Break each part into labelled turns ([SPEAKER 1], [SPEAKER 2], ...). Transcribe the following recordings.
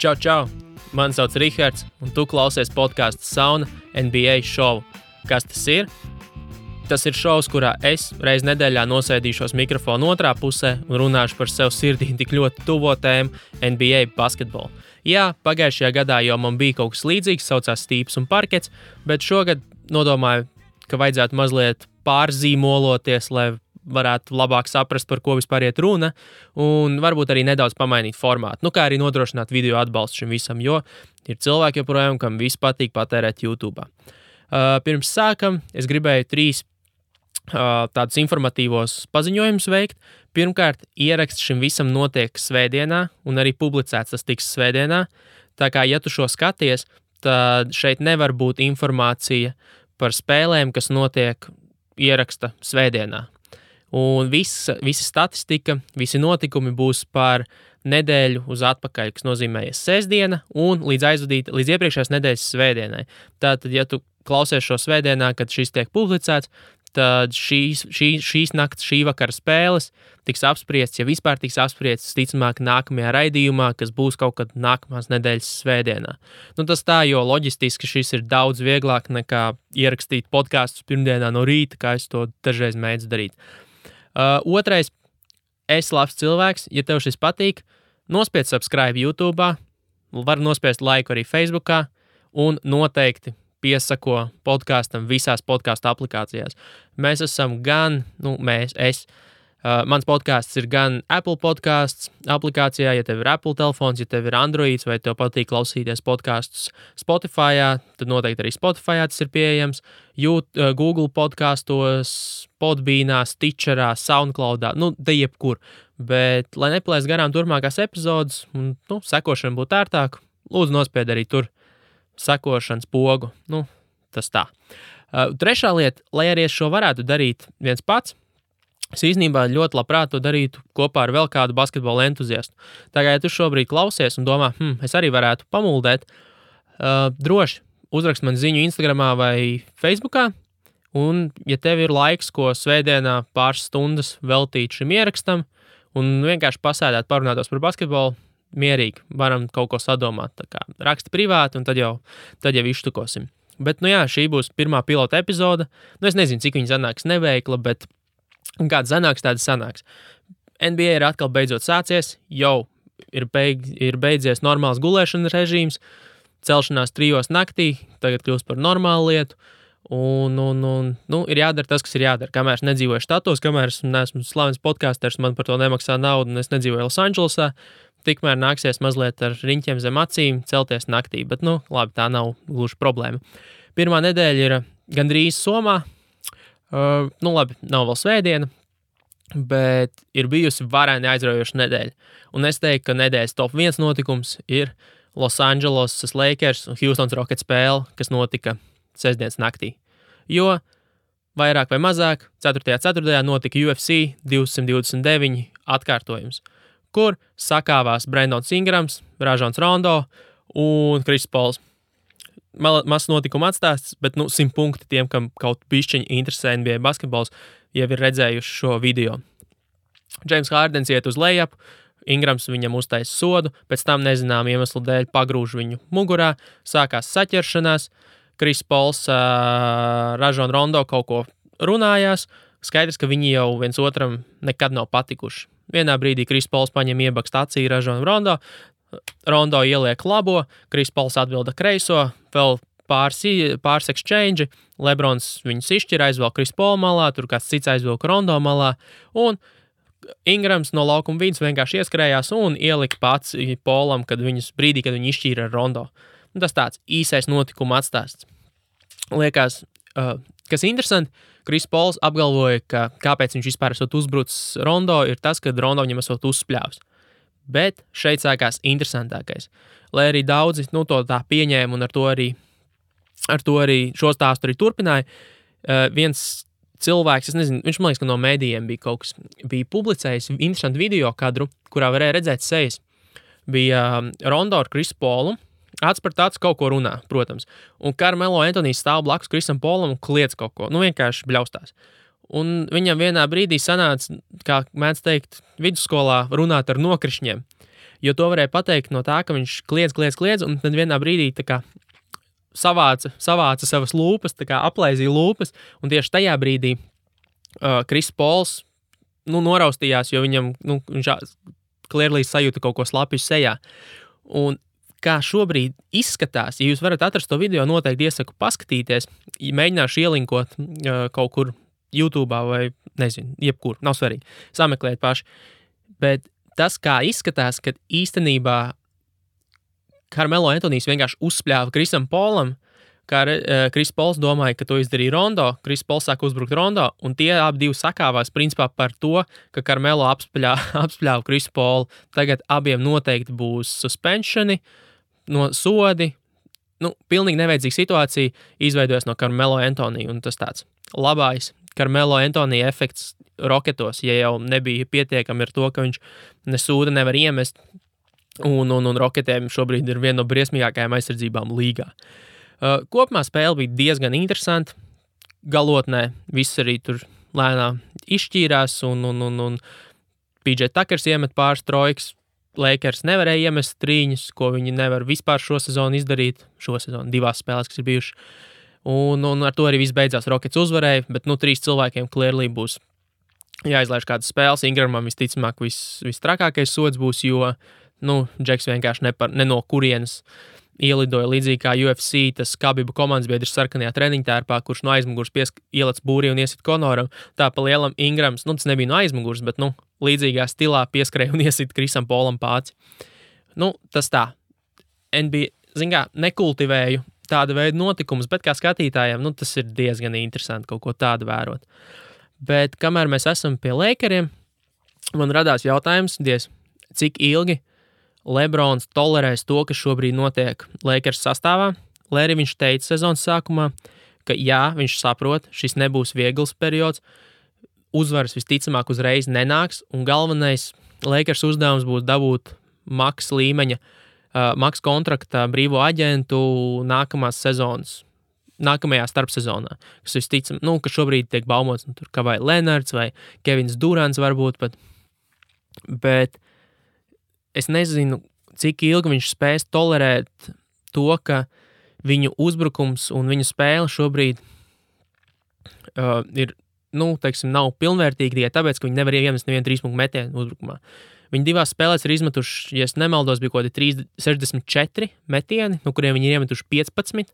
[SPEAKER 1] Čau, čau! Mani sauc Rihards, un tu klausies podcastu Sauna NBA šovu. Kas tas ir? Tas ir šovs, kurā es reiz nedēļā nosēdīšos mikrofonu otrā pusē un runāšu par sev sirdī tik ļoti tuvo tēmu NBA basketbolu. Jā, pagājušajā gadā jau man bija kaut kas līdzīgs, saucās stīps un parkets, bet šogad nodomāju, ka vajadzētu mazliet pārzīmoloties, lai varētu labāk saprast, par ko vispār iet runa, un varbūt arī nedaudz pamainīt formātu. Kā arī nodrošināt video atbalstu šim visam, jo ir cilvēki joprojām, kam viss patīk patērēt YouTube. Pirms sākam, es gribēju 3 tādus informatīvos paziņojumus veikt. Pirmkārt, ieraksts šim visam notiek svētdienā, un arī publicēts tas tiks svētdienā. Tā kā, ja tu šo skaties, tad šeit nevar būt informācija par spēlēm, kas notiek ieraksta svētdienā. Un visa statistika, visi notikumi būs par nedēļu uz atpakaļ, kas nozīmē sestdiena un līdz iepriekšējās nedēļas svētdienai. Tātad, ja tu klausies šo svētdienā, kad šis tiek publicēts, tad šīs nakts, šī vakara spēles tiks apspriests, ja vispār tiks apspriests, ticamāk nākamajā raidījumā, kas būs kaut kad nākamās nedēļas svētdienā. Tas tā, jo loģistiski šis ir daudz vieglāk nekā ierakstīt podkastus pirmdienā no rīta, kā es to dažreiz mēdzu darīt. Otrais, esi labs cilvēks, ja tev šis patīk, nospied subscribe YouTube, var nospiest laiku arī Facebookā un noteikti piesako podkastam visās podkastu aplikācijās. Mēs esam mans podcasts ir gan Apple podcasts aplikācijā, ja tev ir Apple telefons, ja tev ir Androids vai tev patīk klausīties podkastus Spotifyā, tad noteikti arī Spotifyā tas ir pieejams, Google podkastos, Podbeanā, Stitcherā, Soundcloudā, te jebkur. Bet, lai nepalaist garām turpmākās epizodes, un sekošana būtu ērtāk, lūdzu nospied arī tur sekošanas pogu. Tas tā. Trešā lieta, lai arī es šo varētu darīt viens pats, es īstenībā ļoti labprāt to darītu kopā ar vēl kādu basketbola entuziastu. Tā kā, ja tu šobrīd klausies un domā, es arī varētu pamuldēt, droši uzrakst man ziņu Instagramā vai Facebookā, un ja tev ir laiks, ko svētdienā pāris stundas veltīt šim ierakstam, un vienkārši pasēdēt, parunātos par basketbolu, mierīgi, varam kaut ko sadomāt. Tā kā raksti privāti, un tad jau iztukosim. Bet, šī būs pirmā pilota epizode. Es nezinu, cik viņa sanāks neveikla, bet kāda sanāks, tāda sanāks. NBA ir atkal beidzot sācies, jau ir beidzies normāls gulēšanas režīms, celšanās 3 naktī, tagad kļūst par normālu lietu, un ir jādara tas, kas ir jādara. Kamēr es nedzīvoju štatos, kamēr es neesmu slavens podkāsters, man par to nemaksā naudu, un es nedzīvoju Losandželosā, tikmēr nāksies mazliet ar riņķiem zem acīm celties naktī, bet, labi, tā nav gluži problēma. Pirmā nedēļa ir gandrīz somā, labi, nav vēl svētdiena, bet ir bijusi varēni aizraujoša nedēļa. Un es teiktu, ka nedēļas top 1 notikums ir Losandželosas Lakers un Houstons Rockets spēle, kas notika sestdienas naktī. Jo vairāk vai mazāk 4.4. notika UFC 229 atkārtojums, kur sakāvās Brandons Ingrams, Rajons Rondo un Chris Pauls. Mazs notikuma atstāsts, bet 100 punkti tiem, kam kaut bišķiņi interesē NBA basketbols, jau ir redzējuši šo video. James Hardens iet uz lejup, Ingrams viņam uztaisa sodu, pēc tam nezinām iemeslu dēļ pagrūž viņu mugurā, sākās saķeršanās, Chris Pauls, Rajon Rondo kaut ko runājās, skaidrs, ka viņi jau viens otram nekad nav patikuši. Vienā brīdī Chris Pauls paņem iebakst acī Rajon Rondo, Rondo ieliek labo, Chris Pauls atbilda kreiso, vēl pāris exchange, Lebrons viņus izšķir, aizvelk Chris Paul malā, tur kāds cits aizvelk Rondo malā, un Ingrams no laukuma vidus vienkārši ieskrējās un ielika pats Paulam, brīdī, kad viņi izšķīra ar Rondo. Tas tāds īsais notikuma atstāsts. Liekas, kas interesanti, Chris Pauls apgalvoja, ka kāpēc viņš vispār esot uzbrucis Rondo, ir tas, ka Rondo viņam esot uzspļāvis. Bet šeit sākās interesantākais. Lai arī daudzi to tā pieņēma un ar to arī šo stāstu arī turpināja, viens cilvēks, es nezinu, viņš man liekas, ka no mēdījiem bija publicējis interesantu video kadru, kurā varēja redzēt sejas. Bija Rondo ar Chris Paulu, acs par tāds kaut ko runā, protams. Un Carmelo Antonijs stāv blakus Chrisam Paulam un kliedz kaut ko, vienkārši bļaustās. Un viņam vienā brīdī sanāca, kā mēdz teikt, vidusskolā runāt ar nokrišņiem. Jo to varēja pateikt no tā, ka viņš kliedz, un tad vienā brīdī tā kā savāca savas lūpas, tā kā aplaizīja lūpas, un tieši tajā brīdī Kris Pols noraustījās, jo viņam, viņš clearly sajūta kaut ko slapju sejā. Un kā šobrīd izskatās, ja jūs varat atrast to video, noteikti iesaku paskatīties, mēģināšu ielinkot kaut kur YouTube'ā vai, nezinu, jebkur, nav svarīgi, sameklēt paši. Bet tas, kā izskatās, kad īstenībā Carmelo Antonijs vienkārši uzspļāva Krisam Polam, kā Kris Pols domāja, ka to izdarīja Rondo, Kris Pols sāk uzbrukt Rondo, un tie abi divi sakāvās principā par to, ka Carmelo apspļāva Krisu Polu. Tagad abiem noteikti būs suspensioni, no sodi, pilnīgi nevajadzīga situācija izveidojas no Carmelo Antonija, un tas tāds labais Carmelo Antonija efekts Roketos, ja jau nebija pietiekami ar to, ka viņš nesūda nevar iemest, un Roketiem šobrīd ir viena no briesmīgākajām aizsardzībām līgā. Kopumā spēle bija diezgan interesanta, galotnē viss arī tur lēnām izšķīrās, un PJ Tuckers iemet pāris trojkas, Lakers nevarēja iemest trīņus, ko viņi nevar vispār šo sezonu izdarīt, divās spēlēs, kas ir bijušas. Un ar to arī viss beidzās. Rockets uzvarēja, bet 3 cilvēkiem clearly būs jāizlaiž kādas spēles. Ingramam visticamāk vistrakākais sods būs, jo Džeks vienkārši ne no kurienes ielidoja līdzīgi kā UFC, tas Khabiba komandas biedrs sarkanajā treniņtērpā, kurš no aizmugurs ielec būrī un iesit Konoram. Tā pa lielam Ingrams, tas nebija no aizmugurs, bet līdzīgā stilā pieskrēja un iesit Krisam Polam pāci. Tas tā. NBA, nekultivēju tāda veida notikumus, bet kā skatītājiem, tas ir diezgan interesanti kaut ko tādu vērot. Bet kamēr mēs esam pie Lakeriem, man radās jautājums, cik ilgi Lebrons tolerēs to, kas šobrīd notiek Lakers sastāvā. Lai arī viņš teica sezonas sākumā, ka jā, viņš saprot, šis nebūs viegls periods, uzvaras visticamāk uzreiz nenāks, un galvenais Lakers uzdevums būs dabūt maks līmeņa, maks kontrakta brīvo aģentu nākamās sezonas, nākamajā starpsezonā, kas visticam, ka šobrīd tiek baumots, tur Kawhi Leonards vai Kevins Durants varbūt pat, bet es nezinu, cik ilgi viņš spēs tolerēt to, ka viņu uzbrukums un viņu spēle šobrīd ir, nav pilnvērtīgi tikai tāpēc, ka viņi nevar iemest nevienu 3-punktu metienu uzbrukumā. Viņi divās spēlēs ir izmetuši, ja es nemaldos, bija kaut kādi 64 metieni, no kuriem viņi ir iemetuši 15,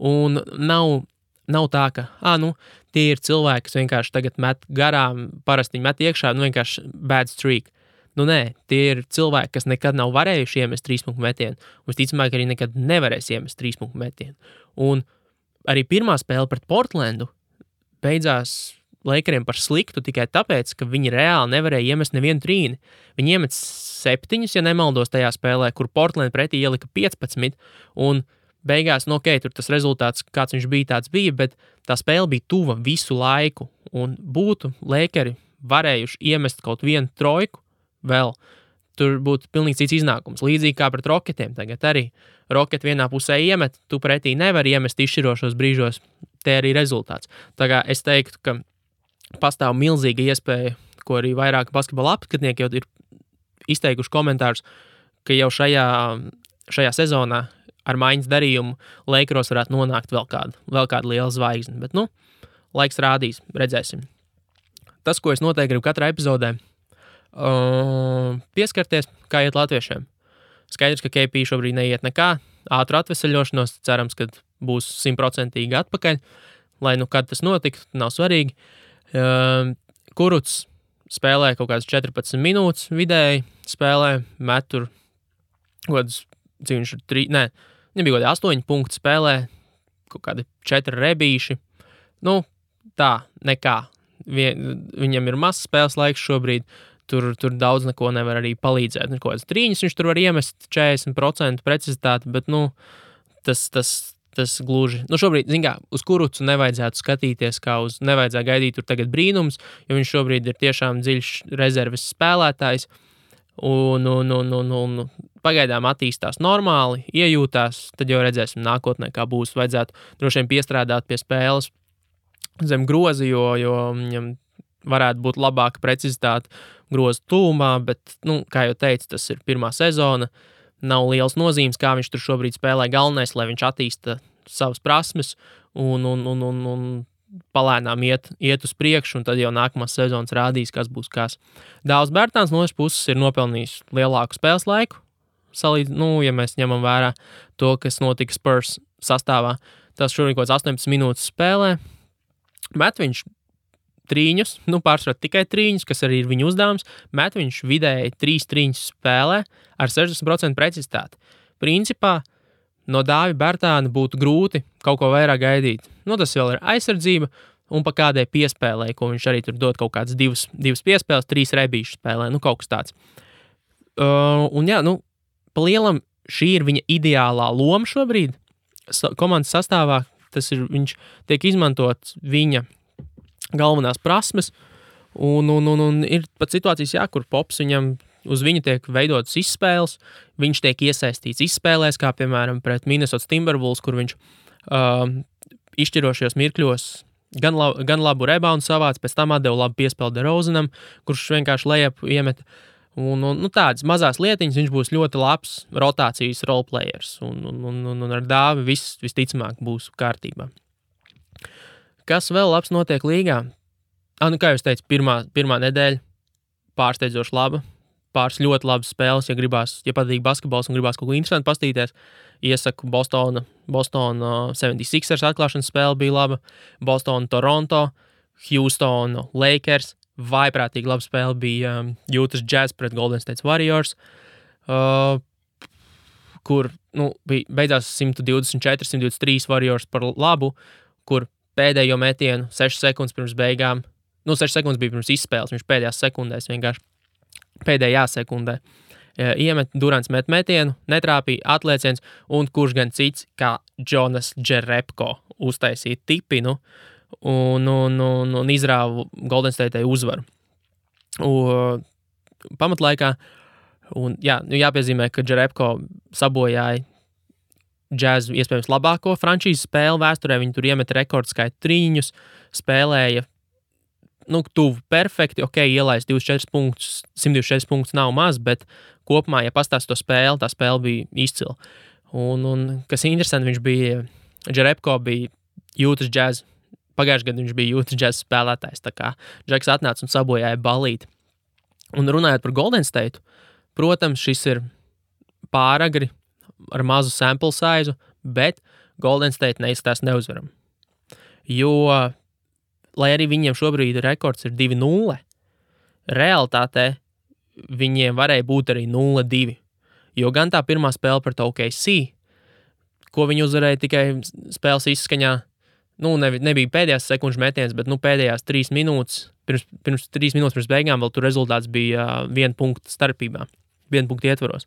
[SPEAKER 1] un nav tā, ka, tie ir cilvēki, kas vienkārši tagad met garām, parasti viņi met iekšā, vienkārši bad streak. Nē, tie ir cilvēki, kas nekad nav varējuši iemest 3-punktu metienu, un visticamāk arī nekad nevarēs iemest 3-punktu metienu. Un arī pirmā spēle pret Portlandu beidzās Lakeriem par sliktu tikai tāpēc, ka viņi reāli nevarēja iemest nevienu trīni. Viņi iemet 7, ja nemaldos tajā spēlē, kur Portland pretī ielika 15, un beigās, tur tas rezultāts, kāds viņš bija, tāds bija, bet tā spēle bija tuva visu laiku, un būtu Lakeri varējuši iemest kaut vienu trojku, vēl tur būtu pilnīgi cits iznākums. Līdzīgi kā pret Roketiem tagad arī. Roketi vienā pusē iemet, tu pretī nevari iemest izšķirošos brīžos, te arī rezultāts. Tā kā es teiktu, ka pastāv milzīga iespēja, ko arī vairāk basketbola apskatnieki jau ir izteikuši komentārus, ka jau šajā sezonā ar maiņas darījumu Lakeros varētu nonākt vēl kāda liela zvaigzne. Bet, laiks rādīs, redzēsim. Tas, ko es noteikti gribu katrā epizodē, pieskarties, kā iet latviešiem. Skaidrs, ka KP šobrīd neiet nekā, ātru atveseļošanos, cerams, ka būs 100% atpakaļ, lai kad tas notiktu, nav svarīgi. Kurucs spēlē kaut kādas 14 minūtes vidēji, spēlē, met tur kaut kādas, cik viņš ir nebija kaut kādi 8 punkti spēlē, kaut kādi 4 rebīši. Tā, nekā. Viņam ir mazs spēles laiks šobrīd, tur daudz neko nevar arī palīdzēt. Kaut kādas trīņas viņš tur var iemest 40% precizitāti, bet, tas gluži. Šobrīd, uz Kurucu nevajadzētu skatīties, nevajadzētu gaidīt tur tagad brīnums, jo viņš šobrīd ir tiešām dziļš rezerves spēlētājs, un pagaidām attīstās normāli, iejūtās, tad jau redzēsim nākotnē, kā būs. Vajadzētu droši vien piestrādāt pie spēles zem grozi, jo viņam varētu būt labāka precizitāte groza tūmā, bet, kā jau teicu, tas ir pirmā sezona. Nav liels nozīmes, kā viņš tur šobrīd spēlē. Galvenais, lai viņš attīsta savas prasmes un palēnām iet uz priekšu, un tad jau nākamās sezonas rādīs, kas būs kas. Dāvs Bērtāns no otras puses ir nopelnījis lielāku spēles laiku. Ja mēs ņemam vērā to, kas notika Spurs sastāvā, tas šodien kaut kāds 18 minūtes spēlē. Met viņš trīņus, pārsvarā tikai trīņus, kas arī ir viņa uzdevums. Met viņš vidēji 3 trīņus spēlē ar 60% precizitāti. Principā no Dāvi Bērtāna būtu grūti kaut ko vairāk gaidīt. Tas vēl ir aizsardzība un pa kādai piespēlē, ko viņš arī tur dod kaut kādas divas piespēles, 3 rebīšu spēlē, kaut kas tāds. Pa lielam šī ir viņa ideālā loma šobrīd komandas sastāvā. Viņš tiek izmantot viņa galvenās prasmes, un ir pat situācijas, kur Pops viņam uz viņu tiek veidotas izspēles, viņš tiek iesaistīts izspēlēs, kā piemēram pret Minnesota Timberwolves, kur viņš izšķirošajos mirkļos gan labu reboundu savāc, pēc tam atdeva labu piespēli DeRozanam, kurš vienkārši lejap iemet. Un tādas mazās lietiņas viņš būs ļoti labs rotācijas roleplayers, un ar Dāvi visticamāk būs kārtībā. Kas vēl labs notiek līgā? Kā jau es teicu, pirmā nedēļa pārsteidzoši laba, pāris ļoti labas spēles, ja patīk basketbols un gribās kaut ko interesantu pastīties. Iesaku Boston 76ers atklāšanas spēle bija laba, Boston Toronto, Houston Lakers, vaiprātīgi laba spēle bija Utah Jazz pret Golden State Warriors, kur beidzās 124-123 Warriors par labu, kur pēdējo metienu 6 sekundes pirms beigām, 6 sekundes bija pirms izspēles, viņš pēdējās sekundēs vienkārši pēdējā sekundē iemet, Durants met metienu, netrāpīja atlieciens, un kurš gan cits kā Jonas Jerebko uztaisīja tipinu, un izrāva Golden State'ai uzvaru pamatlaikā. Un jāpiezīmē, ka Jerebko sabojāja Jazz iespējams labāko frančīzes spēli vēsturē. Viņi tur iemet rekordskaitu trīņus, spēlēja tuvu perfekti, ielaist 24 punktus, 124 punktus nav maz, bet kopumā, ja pastāst to spēli, tā spēle bija izcila. Un kas interesanti, Jerebko bija Utah Jazz. Pagājušajā gadā viņš bija Utah Jazz spēlētājs, tā kā Džeks atnāca un sabojāja balīti. Un runājot par Golden State, protams, šis ir pāragri ar mazu sample size, bet Golden State neizstās neuzvaram. Jo, lai arī viņiem šobrīd rekords ir 2-0, realitātē viņiem varēja būt arī 0-2. Jo gan tā pirmā spēle pret OKC, ko viņi uzvarēja tikai spēles izskaņā, nebija pēdējās sekundžu metiens, bet pēdējās 3 minūtes, pirms 3 minūtes pirms beigām vēl tur rezultāts bija 1 punkta starpībā, 1 punkta ietvaros.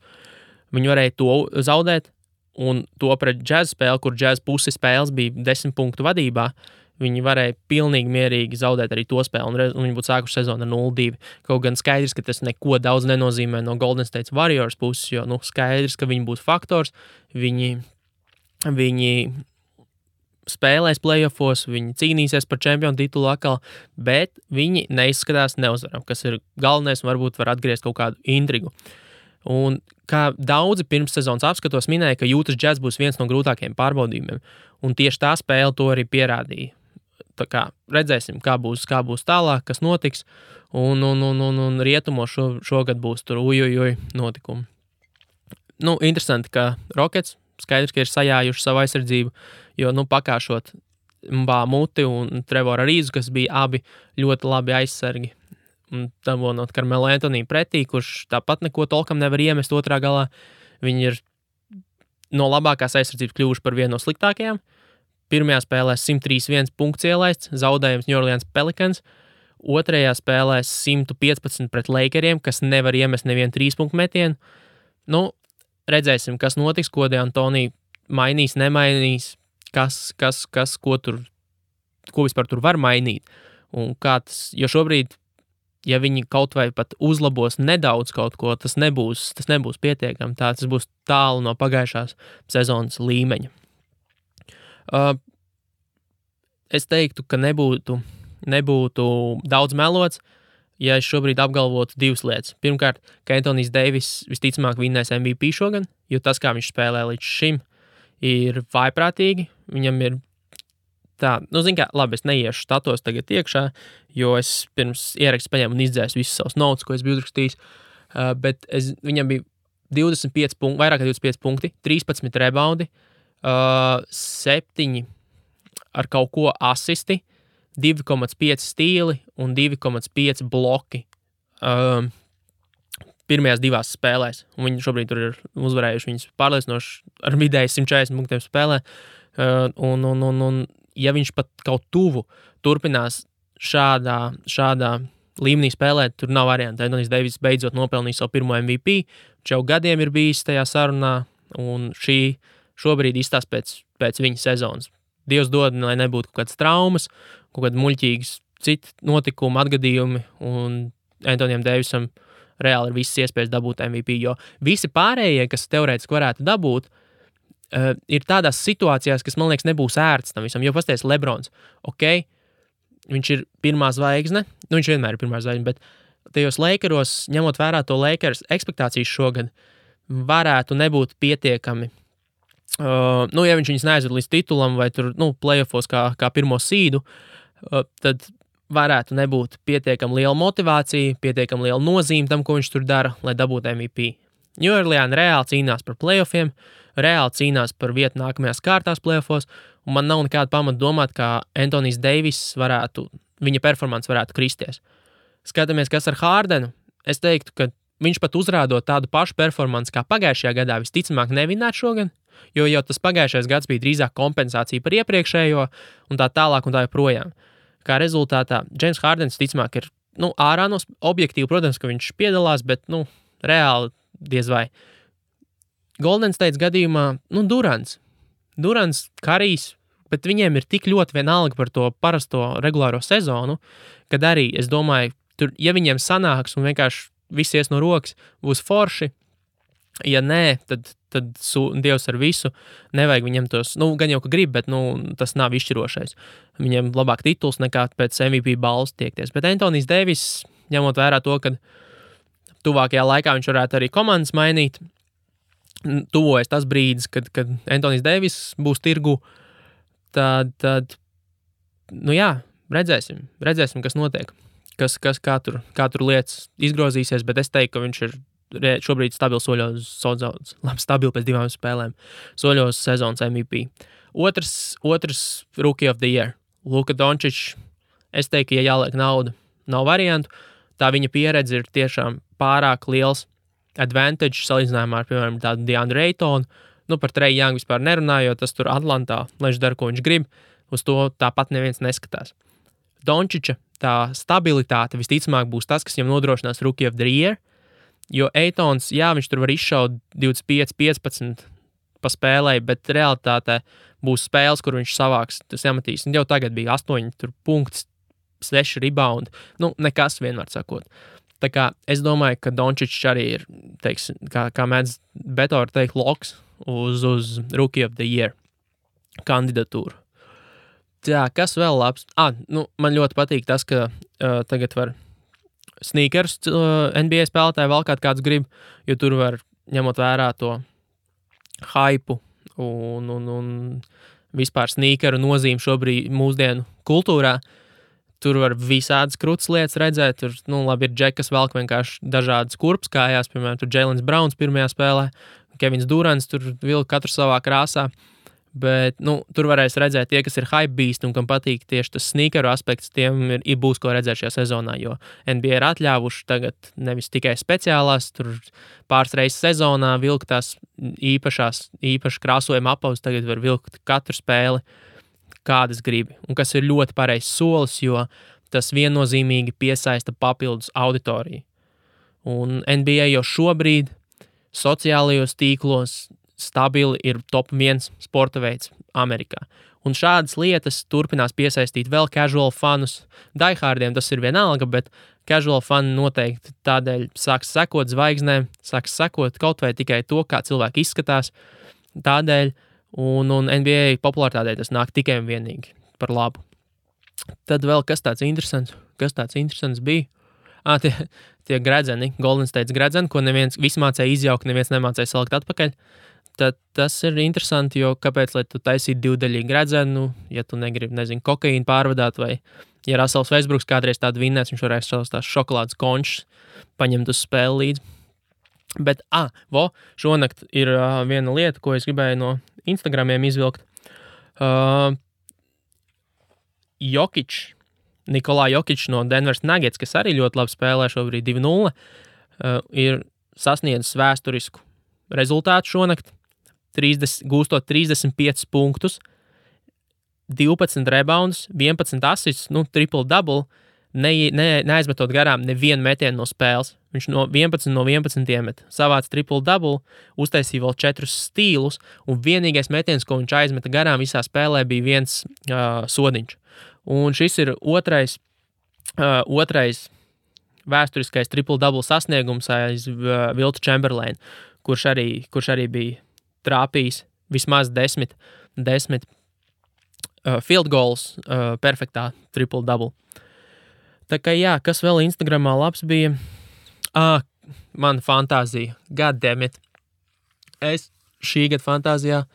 [SPEAKER 1] Viņi varēja to zaudēt, un to pret Jazz spēli, kur Jazz pusi spēles bija 10 punktu vadībā, viņi varēja pilnīgi mierīgi zaudēt arī to spēli, un viņi būtu sākuši sezonu ar 0-2. Kaut gan skaidrs, ka tas neko daudz nenozīmē no Golden State Warriors puses, jo skaidrs, ka viņi būs faktors, viņi spēlēs playoffos, viņi cīnīsies par čempionu titulu atkal, bet viņi neizskatās neuzvaram, kas ir galvenais, un varbūt var atgriezt kaut kādu intrigu. Un kā daudzi pirms sezonas apskatos minēja, ka Utah Jazz būs viens no grūtākajiem pārbaudījumiem, un tieši tā spēle to arī pierādīja. Tā kā redzēsim, kā būs tālāk, kas notiks, un rietumos šogad būs tur notikumi. Interesanti, ka Rockets skaidrs, ka ir sajājuši savu aizsardzību, jo, pakāšot Muti un Trevoru Rīzu, kas bija abi ļoti labi aizsargi, un dabonot Carmelo Anthony pretī, kurš tāpat neko tolkam nevar iemest otrā galā. Viņi ir no labākās aizsardzības kļuvuši par vienu no sliktākajām. Pirmajā spēlē 131 punkts ielaists, zaudējums New Orleans Pelicans. Otrajā spēlē 115 pret Lakeriem, kas nevar iemest nevienu 3 punktu metienu. Redzēsim, kas notiks, ko D'Antoni mainīs, nemainīs, ko vispār tur var mainīt. Un kā tas, jo šobrīd, ja viņi kaut vai pat uzlabos nedaudz kaut ko, tas nebūs pietiekami. Tas būs tālu no pagājušās sezonas līmeņa. Es teiktu, ka nebūtu nebūtu daudz melots, ja es šobrīd apgalvotu divas lietas. Pirmkārt, ka Anthony's Davis visticamāk vinnēs MVP šogad, jo tas, kā viņš spēlē līdz šim, ir vājprātīgi. Viņam ir tā, labi, es neiešu statos tagad iekšā, jo es pirms ierakstu paņēmu un izdzēsu visus savus notes, ko es biju uzrakstījis, bet viņam bija 25 punkti, vairāk kā 25 punkti, 13 rebaundi, 7 ar kaut ko asisti, 2,5 stīli un 2,5 bloki pirmajās divās spēlēs. Un viņi šobrīd tur ir uzvarējuši viņus pārliecinoši ar vidēji 140 punktiem spēlē. Un ja viņš pat kaut tuvu turpinās šādā līmenī spēlēt, tur nav variantu. Anthony Davis beidzot nopelnīja savu pirmo MVP, viņš jau gadiem ir bijis tajā sarunā, un šobrīd izstās pēc viņa sezonas. Dievs dod, lai nebūtu kaut kādas traumas, kaut kādi muļķīgas citi notikumi, atgadījumi, un Anthonyam Davisam reāli ir visas iespējas dabūt MVP, jo visi pārējie, kas teorētiski varētu dabūt, ir tādās situācijās, kas, man liekas, nebūs ērts tam visam, jo pasties Lebrons, ok, viņš ir pirmā zvaigzne, viņš vienmēr ir pirmā zvaigzne, bet tajos Lakeros, ņemot vērā to Lakers ekspektācijas šogad, varētu nebūt pietiekami. Ja viņš viņus neaizved līdz titulam vai tur, playoffos kā pirmo sīdu, tad varētu nebūt pietiekami liela motivācija, pietiekami liela nozīme tam, ko viņš tur dara, lai dabūtu MVP. New Orleans reāli cīnās par playoffiem, reāli cīnās par vietu nākamajās kārtās playoffos, un man nav nekāda pamata domāt, ka Anthony Davis viņa performance varētu kristies. Skatāmies, kas ar Hardenu. Es teiktu, ka viņš pat uzrādot tādu pašu performanci kā pagājušajā gadā, visticamāk nevinēt šogad, jo jau tas pagājušais gads bija drīzāk kompensācija par iepriekšējo un tā tālāk un tā joprojām. Kā rezultātā James Hardens ticamāk ir ārā no objektīvi, protams, ka viņš piedalās, bet reāli diez vai. Golden State gadījumā Durants, Karijs, bet viņiem ir tik ļoti vienalga par to parasto regulāro sezonu, kad arī, es domāju, tur, ja viņiem sanāks un vienkārši viss ies no rokas, būs forši. Ja nē, tad Dievs ar visu, nevajag viņam tos, gan jau, ka grib, bet tas nav izšķirošais. Viņiem labāk tituls nekā pēc MVP balvas tiekties. Bet Anthony Davis, ņemot vērā to, ka tuvākajā laikā viņš varētu arī komandas mainīt, tuvojas tas brīdis, kad Anthony Davis būs tirgu, tad redzēsim, kas notiek, kā tur lietas izgrozīsies, bet es teiktu, ka viņš ir šobrīd stabili stabili pēc 2 spēlēm, soļos sezonas MVP. Otrs Rookie of the Year, Luka Dončić. Es teiktu, ja jāliek nauda, nav variantu. Tā viņa pieredze ir tiešām pārāk liels advantage salīdzinājumā ar, piemēram, tādu DeAndre Aytonu. Par Trae Young vispār nerunājot, tas tur Atlantā, lai viņš dara, ko viņš grib, uz to tāpat neviens neskatās. Dončića tā stabilitāte visticamāk būs tas, kas viņam nodrošinās Rookie of the Year, jo Aytons, viņš tur var izšaut 25-15 pa spēlē, bet realitātē būs spēles, kur viņš savāks, tas jāmatīs. Jau tagad bija 8 punkts, 6 rebound, nekas vienmēr sakot. Tā kā es domāju, ka Dončić arī ir, teiksim, kā mēdz Betor teikt, loks uz Rookie of the Year kandidatūru. Tā, kas vēl labs? Man ļoti patīk tas, ka tagad var sneakers NBA spēlētāji valkāt kāds grib, jo tur var ņemot vērā to hypu un vispār sneakeru nozīmi šobrīd mūsdienu kultūrā. Tur var visādas krūtas lietas redzēt. Tur, labi, ir džekas velk vienkārši dažādas kurpes kājās, piemēram, tur Jaylen Browns pirmajā spēlē, Kevins Durants tur vilka katru savā krāsā. Bet, tur varēs redzēt tie, kas ir hype beast un kam patīk tieši tas sneakeru aspekts, tiem būs ko redzēt šajā sezonā, jo NBA ir atļāvuši tagad nevis tikai speciālās, tur pāris reizes sezonā vilkt tās īpaši krāsojuma apavus, tagad var vilkt katru spēli, kādas gribi, un kas ir ļoti pareizs solis, jo tas viennozīmīgi piesaista papildus auditoriju. Un NBA jau šobrīd sociālajos tīklos stabili ir top 1 sporta veids Amerikā. Un šādas lietas turpinās piesaistīt vēl casual fanus. Diehardiem tas ir vienalga, bet casual fani noteikti tādēļ sāks sekot zvaigznēm, sāks sekot kaut vai tikai to, kā cilvēki izskatās. Tādēļ, un NBA popularitātei tas nāk tikai un vienīgi par labu. Tad vēl kas tāds interesants bija? Tie gredzeni, Golden State gredzeni, ko visi mācēja izjaukt, neviens nemācēja salikt atpakaļ. Tad tas ir interesanti, jo kāpēc, lai tu taisītu divdaļīgu gredzenu, ja tu negribi, kokaīnu pārvadāt, vai ja Russells Westbrooks kādreiz tādu vinnēs, viņš varēs savus tās šokolādes končus paņemt uz spēli līdzi. Bet, šonakt ir viena lieta, ko es gribēju no Instagramiem izvilkt. Nikolā Jokič no Denveras Nuggets, kas arī ļoti labi spēlē šobrīd 2-0, ir sasniedzis vēsturisku rezultātu šonakt, gūstot 35 punktus, 12 reboundus, 11 assists, triple-double, neaizmetot garām nevienu metienu no spēles. Viņš 11 no 11 iemet. Savāc triple-double, uztaisīja vēl 4 stīlus, un vienīgais metiens, ko viņš aizmeta garām visā spēlē, bija viens sodiņš. Un šis ir otrais vēsturiskais triple-double sasniegums aiz Wiltu Chamberlainu, kurš arī bija trāpījis vismaz 10 field goals perfektā triple-double. Tā kā kas vēl Instagramā labs bija? Man fantāzija, goddammit. Es šī gada fantāzijā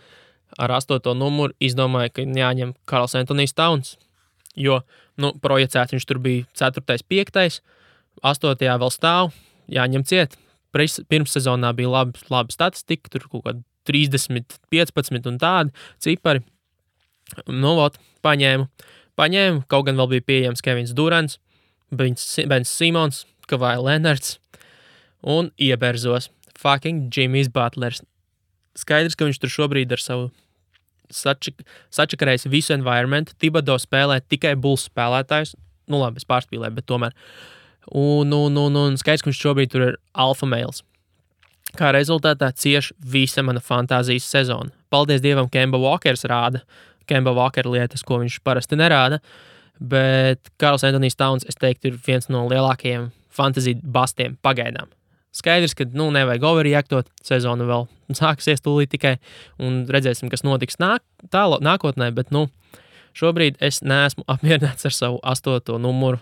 [SPEAKER 1] ar 8. numuru izdomāju, ka jāņem Karls Anthonijs Towns, jo, projicēts viņš tur bija 4., 5., 8. vēl stāv, jāņem ciet. Pirmssezonā bija laba statistika, tur kaut kāda 30, 15 un tādi cipari. Paņēmu, kaut gan vēl bija pieejams Kevins Durants, Bens Simons, Kawhi Leonards un ieberzos fucking Jimmy's Butlers. Skaidrs, ka viņš tur šobrīd ar savu sačakarējis visu environmentu. Thibodeau spēlē tikai Bulls spēlētājus. Labi, es pārspīlēju, bet tomēr. Un skaidrs, ka viņš šobrīd tur ir alfa males. Kā rezultātā cieš visa mana fantāzijas sezona. Paldies Dievam, Kemba Walkers rāda. Kemba Walker lietas, ko viņš parasti nerāda. Bet Karls Anthonijs Towns, es teiktu, ir viens no lielākajiem fantasy bastiem pagaidām. Skaidrs, ka nevajag overreaktot, sezona vēl sāksies tūlīt tikai, un redzēsim, kas notiks nākotnē, bet šobrīd es neesmu apmierināts ar savu 8. numuru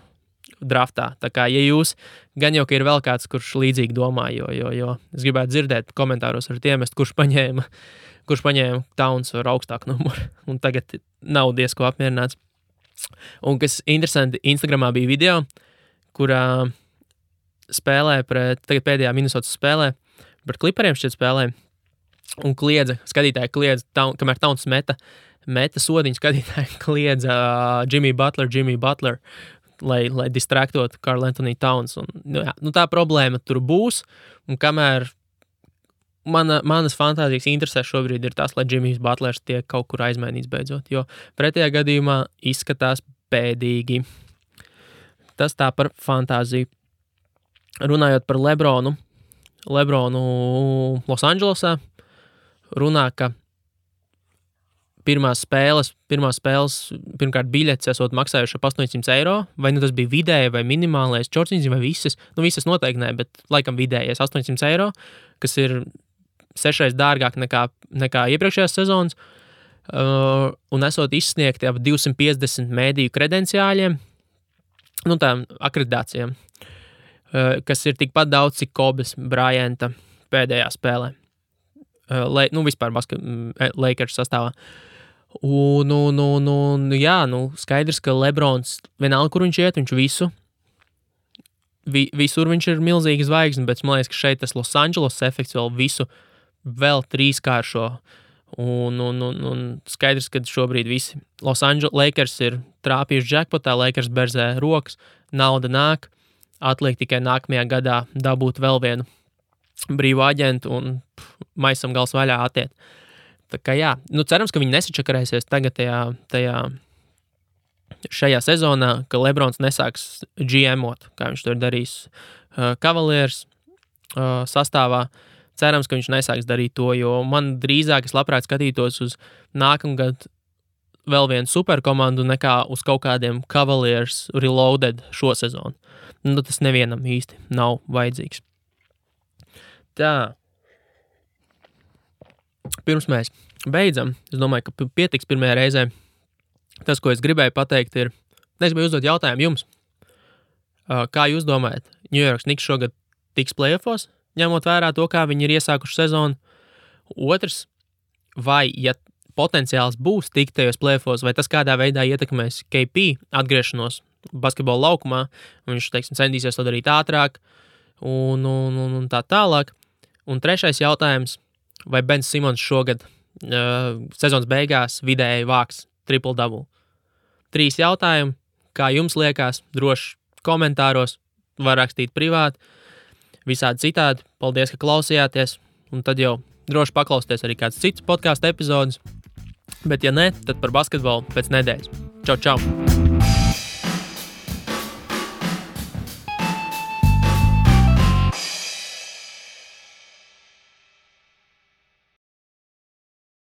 [SPEAKER 1] draftā. Tā kā, ja jūs, gan jau, ka ir vēl kāds, kurš līdzīgi domā, jo es gribētu dzirdēt komentāros ar tiem, kurš paņēma Towns ar augstāku numuru, un tagad nav diezko apmierināts. Un kas interesanti, Instagramā bija video, kurā spēlē tagad pēdējā Minnesotas spēlē, pret Clipperiem šķiet spēlē, un skatītāji kliedza, kamēr Towns meta sodiņu, skatītāji kliedza Jimmy Butler, lai distraktot Karl Anthony Towns. Un, tā problēma tur būs, un kamēr manas fantāzijas interesēs šobrīd ir tas, lai Jimmy's Butlers tiek kaut kur aizmainīts beidzot, jo pretējā gadījumā izskatās bēdīgi. Tas tā par fantāziju. Runājot par Lebronu Losandželosā, runā, ka pirmās spēles, pirmkārt biļetes esot maksājuši ap 800 eiro, vai tas bija vidēji vai minimālais, čorciņas vai visas, visas noteikti ne, bet laikam vidējais 800 eiro, kas ir 6 dārgāk nekā iepriekšējās sezonas, un esot izsniegti ap 250 mēdīju kredenciāļiem, tām akreditācijām, kas ir tikpat daudz, cik Kobes Bryanta pēdējā spēlē. Vispār Lakers sastāvā. Skaidrs, ka Lebrons, vienalga, kur viņš iet, viņš visur viņš ir milzīgi zvaigzne, bet man liekas, ka šeit tas Los Angeles efekts vēl 3-kāršo. Un skaidrs, ka šobrīd visi Los Angeles Lakers ir trāpījuši jackpotā, Lakers berzē rokas, nauda nāk, atliek tikai nākamajā gadā dabūt vēl vienu brīvu aģentu un maisam gals vaļā atiet. Tā kā cerams, ka viņi nesačakarēsies tagad šajā sezonā, ka Lebrons nesāks GM-ot, kā viņš to ir darījis Cavaliers sastāvā. Cerams, ka viņš nesāks darīt to, jo man drīzāk es labprāt skatītos uz nākamgad vēl vienu superkomandu nekā uz kaut kādiem Cavaliers reloaded šo sezonu. Tas nevienam īsti nav vajadzīgs. Tā. Pirms mēs beidzam, es domāju, ka pietiks pirmajā reizē. Tas, ko es gribēju pateikt, ir Es gribēju uzdot jautājumu jums. Kā jūs domājat, New York Knicks šogad tiks playoffos, ņemot vērā to, kā viņi ir iesākuši sezonu? Otrs, vai, ja potenciāls būs tikt tajos playoffos, vai tas kādā veidā ietekmēs KP atgriešanos basketbola laukumā, viņš, teiksim, centīsies to darīt ātrāk un tā tālāk. Un trešais jautājums, vai Bens Simons šogad sezonas beigās vidēji vāks triple-double? 3 jautājumi, kā jums liekas, droši komentāros, var rakstīt privāti, visādi citādi. Paldies, ka klausījāties, un tad jau droši paklausties arī kāds cits podcastu epizodes, bet ja ne, tad par basketbolu pēc nedēļas. Čau, čau!